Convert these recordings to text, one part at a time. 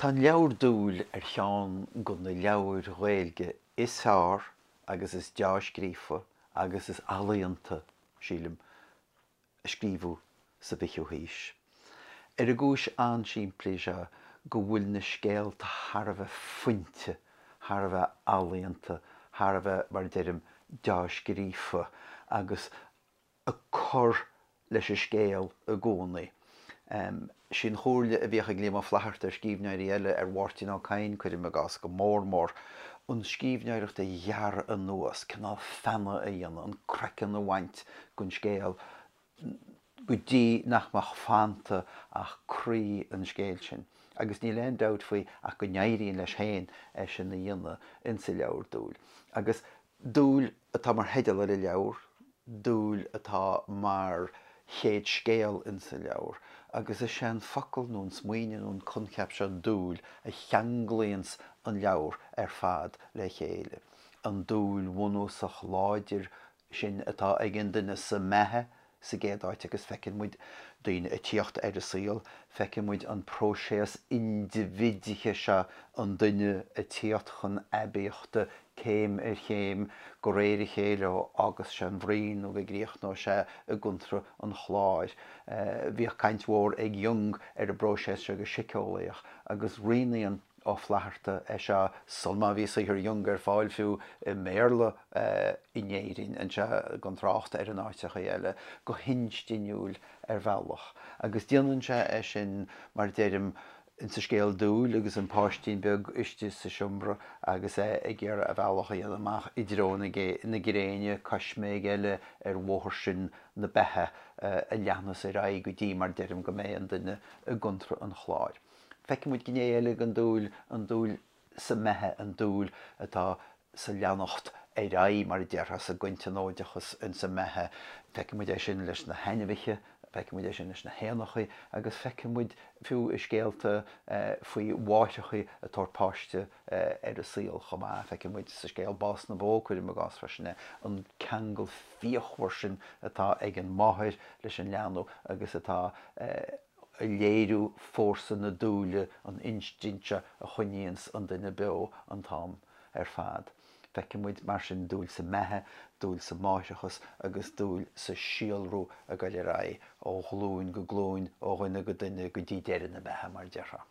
Tá an leabhar Dúil ar cheann de na leabhair Ghaeilge is fearr agus is deá-scríofa agus is ealaíonta, sílim, a scríobhadh sa bhfichiú haois. Ar an gcúis an-simplí seo go bhfuil na scéalta thar a bheith fuinte, thar a bheith ealaíonta, thar a bheith, mar a deirim, deá-scríofa agus ag cur leis an scéal i gcónaí. Sí an chomhairle a bhíodh ag Liam Ó Flaithearta ar scríbhneoirí eile, ar Mháirtín Ó Cadhain, cuirim i gcás, go mór mór, an scríbhneoireacht a ghearradh anuas, cineál feannadh a dhéanamh, an craiceann a bhaint den scéal go dtí nach mbeadh fanta ach croí an scéil sin. Agus níl aon dabht faoi ach go n-éiríonn leis féin é sin a dhéanamh insa leabhar Dúil. Agus Dúil atá mar theideal ar an leabhar, dúil atá mar chéad scéal insa leabhar, agus is é an focal nó an smaoineamh nó an coincheap seo dúil a cheanglaíonns an leabhar ar fad le chéile. An dúil bhunúsach láidir sin atá ag an duine sa mbeatha sa gcéad áit agus feiceann muid daoine ag tíocht ar an saol, feiceann muid an próiseas indibhidithe seo, an duine ag tíocht chun aibíochta céim ar chéim, de réir a chéile ó fhágas sé an bhroinn nó go gcríochnóidh sé i gcontra an chláir. Bhíodh caint mhór ag Jung ar an bpróiseas seo go síceolaíoch agus rianaíonn Ó Flaithearta é seo sul má bhí saothar Jung ar fáil fiú i mBéarla in Éirinn anseo, gan trácht ar in áiteachaí eile, go hinstinniúil ar bhealach. Agus déanann sé é sin, mar deirim, insa scéal Dúil agus an páistín beag istigh sa seomra agus é ag iarraidh a bhealach a dhéanamh amach i dtreo na gréine, coisméig eile ar bhóthar sin na beatha a leathnas ar aghaidh go dtí, mar deirim, go mbeidh an duine i gcontra an chláir. Feiceann muid gné eile den dúil, an dúil sa mbeatha, an dúil atá sa leanacht ar aghaidh, mar a déarfá, sa gcointionóideachas insa mbeatha. Feiceann muid é sin leis na hainmhithe, feiceann muid é sin leis na héanachaí agus feiceann muid fiú i scéalta faoi mháithreachaí ag tabhairt páiste ar an saol chomh maith. Feiceann muid sa scéal Bás na Bó, cuirim i gcás freisin é, an ceangal fíochmhar sin atá ag an máthair leis an leanbh agus atá ag léiriú fórsa na dúile, an instinct seo a choinníonns an duine beo an t-am ar fad. Feiceann muid, mar sin, dúil sa mbeatha, dúil sa máithreachas agus dúil sa síolrú ag goil ar aghaidh ó ghlúin go glúin, ó dhuine go duine go dtí deireadh na beatha, mar a déarfá.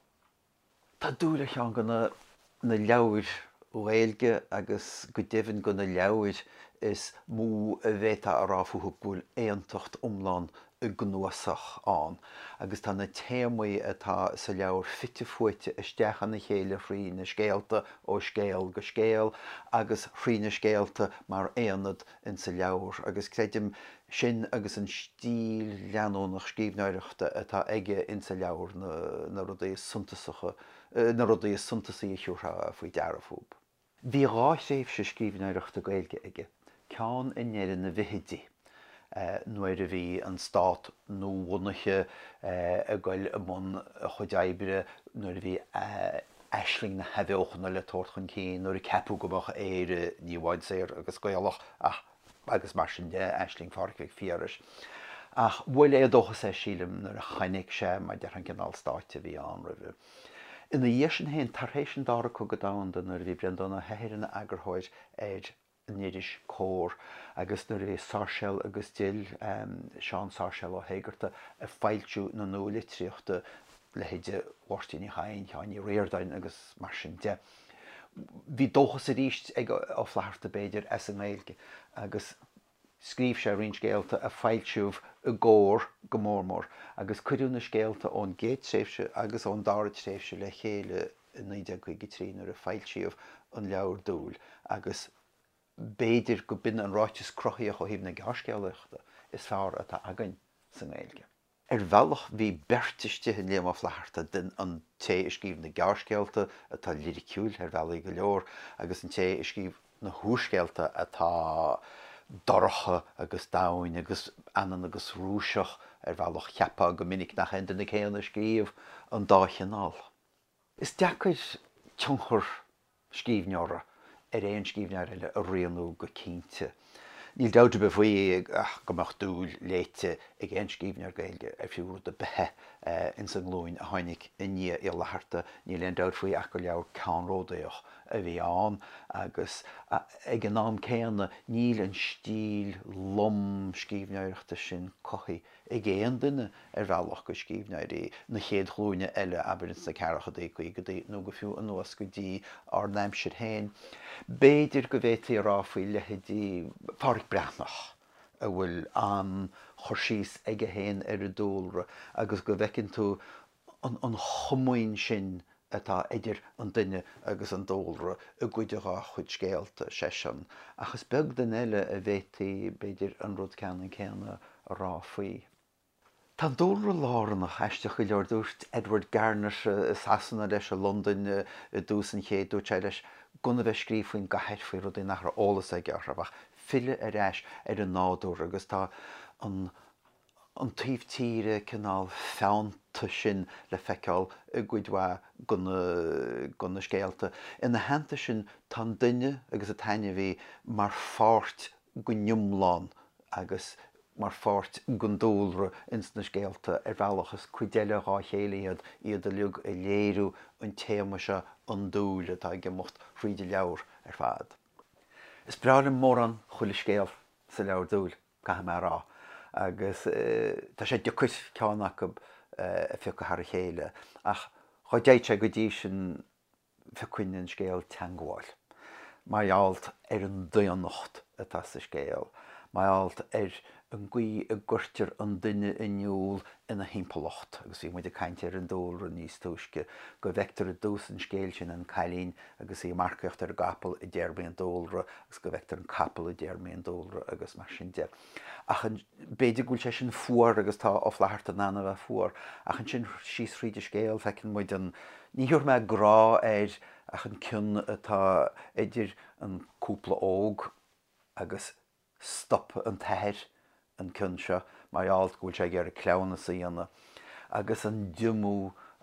Tá Dúil ar cheann de na leabhair Ghaeilge agus go deimhin de na leabhair is mó a bhféadfá a rá fúthu go bhfuil aontacht iomlán i gcnuasach ann agus tá na téamaí atá sa leabhar fite fuaite isteach ina chéile thrí na scéalta ó scéal go scéal agus thrí na scéalta mar aonad insa leabhar agus creidim sin agus an stíl leanúnach scríbhneoireachta atá aige insa leabhar na rudaí is suntasacha, na rudaí is suntasaí a thiúrfá faoi deara fúb. Bhí dhá thréimhse scríbhneoireachta Gaeilge aige, ceann i ndeireadh na bhfichidí, nuair a bhí an stát nuabhunaithe ag goil i mbun a chuid oibre, nuair a bhí aisling na hathbheochana le tabhairt chun cinn, nuair a ceapadh go mbeadh Éire ní amháin saor agus Gaelach ach agus mar sin de, aisling Phádraig Mhic Phiarais. Ach bhuail éadóchas é, sílim, nuair a chonaic sé, mar a déarfá, an cineál stáit a bhí ann roimhe. Ina dhiaidh sin féin, tar éis an Dara Cogadh Domhanda, nuair a bhí Breandán Ó hEithir ina eagarthóir ar an iris Comhar agus nuair a bhí Sáirséal agus Dill, Seán Sáirséal Ó hÉigeartaigh, ag foilsiú na nualitríochta, leithéide Mháirtín Uí Chadhain, Sheáin Uí Ríordáin agus mar sin de. Bhí dóchas arís ag Ó Flaithearta, b'fhéidir, as an nGaeilge agus scríobh sé roinnt scéalta a foilsíodh i gComhar go mór mór agus cuireadh na scéalta ón gcéad tréimhse agus ón dara tréimhse le chéile i 1953 nuair a foilsíodh an leabhar Dúil agus b'fhéidir go b'in an ráiteas cruthaíoch ó thaobh na gearrscéalaíochta is fearr atá againn sa nGaeilge. Ar bhealach bhí beirt istigh in Liam Ó Flaithearta, den an té a scríobh na gearrscéalta, atá liriciúil ar bhealaí go leor, agus an té a scríobh na húrscéalta atá dorcha agus domhain agus anonn agus Rúiseach ar bhealach. Cheapfá go minic nach é an duine céanna a scríobh an dá chineál. Is deacair tionchar scríbhneora ar aon scríbhneoir eile a rianú go cinnte. Níl dabht ar bith faoi ach go mbeadh Dúil léite ag aon scríbhneoir Gaeilge ar fiú rud ar bith é ins an nglúin a tháinig i ndiaidh Uí Fhlatharta. Níl aon dabht faoi ach gur leabhar ceannródaíoch a bhí ann agus ag an am céanna níl an stíl lom scríbhneoireachta sin cothaithe ag aon duine ar bhealach de scríbhneoirí na chéad ghlúine eile, abair ins na ceathrachaidí, caogaidí nó go fiú anuas go dtí ár n-aimsir féin. B'fhéidir go bhféadfaí a rá faoi leithéidí Phádraic Breathnach, a bhfuil an-chur síos aige féin ar an dúlra agus go bhfeiceann tú an chomaoin sin atá idir an duine agus an dúlra i gcuid dhá chuid scéalta, seisean, ach is beag duine eile a bhféadfaí, b'fhéidir, an rud ceannann céanna a rá faoi. Tá an dúlra lárnach, aisteach go leor. Dúirt Edward Garnett i Sasana leis, i Londain i dtús an chéid, dúirt sé leis gan a bheith ag scríobh faoin gcathair, faoi rudaí nach raibh eolas aige orthu, ach filleadh ar ais ar an nádúr agus tá an an taobh tíre cineál feannta sin le feiceáil i gcuid mhaith de na scéalta. Ina theannta sin, tá an duine agus an t-ainmhí mar pháirt den iomlán agus mar pháirt den dúlra ins na scéalta ar bhealach. Is cuid eile dhá chéile iad, iad uilig ag léiriú an téama seo, an dúil, atá ag imeacht thríd an leabhar ar fad. Is breá liom mórán chuile scéal sa leabhar Dúil. caithfidh mé a rá, agus tá sé deacair ceann acu a phiocadh thar a chéile, ach dhá dtéadh sé go dtí sin phiocfainn an scéal Teangmháil, mar gheall ar an daonnacht atá sa scéal, mar gheall ar an gcaoi a gcuirtear an duine in iúl ina thimpeallacht, agus bhí muid ag caint ar an dúlra níos túisce, go bhfeictear i dtús an scéil sin an cailín agus í ag marcaíocht ar an gcapall i dtéarmaí an dúlra agus go bhfeictear an capall i dtéarmaí an dúlra agus mar sin de. Ach b'fhéidir go bhfuil sé sin fuar agus tá Ó Flatharta in ann a bheith fuar, ach ansin síos thríd an scéal feiceann muid an, ní thabharfaidh mé grá air ach an cion atá idir an cúpla óg agus Stop an t-athair an cion seo mar gheall go bhfuil sé ag iarraidh cleamhnas a dhéanamh agus an diomú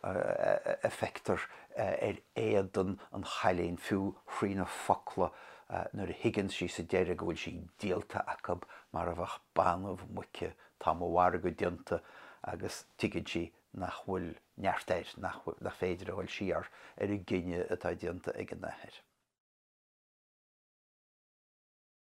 a feictear ar éadan an chailín, fiú thrí na focla nuair a thuigeann sí sa deireadh go bhfuil sí díolta acu mar a bheadh banbh muice, tá mo mhargadh déanta agus tuigeann sí nach bhfuil neart air, nach féidir a dhul siar ar an gcinneadh atá déanta ag an athair.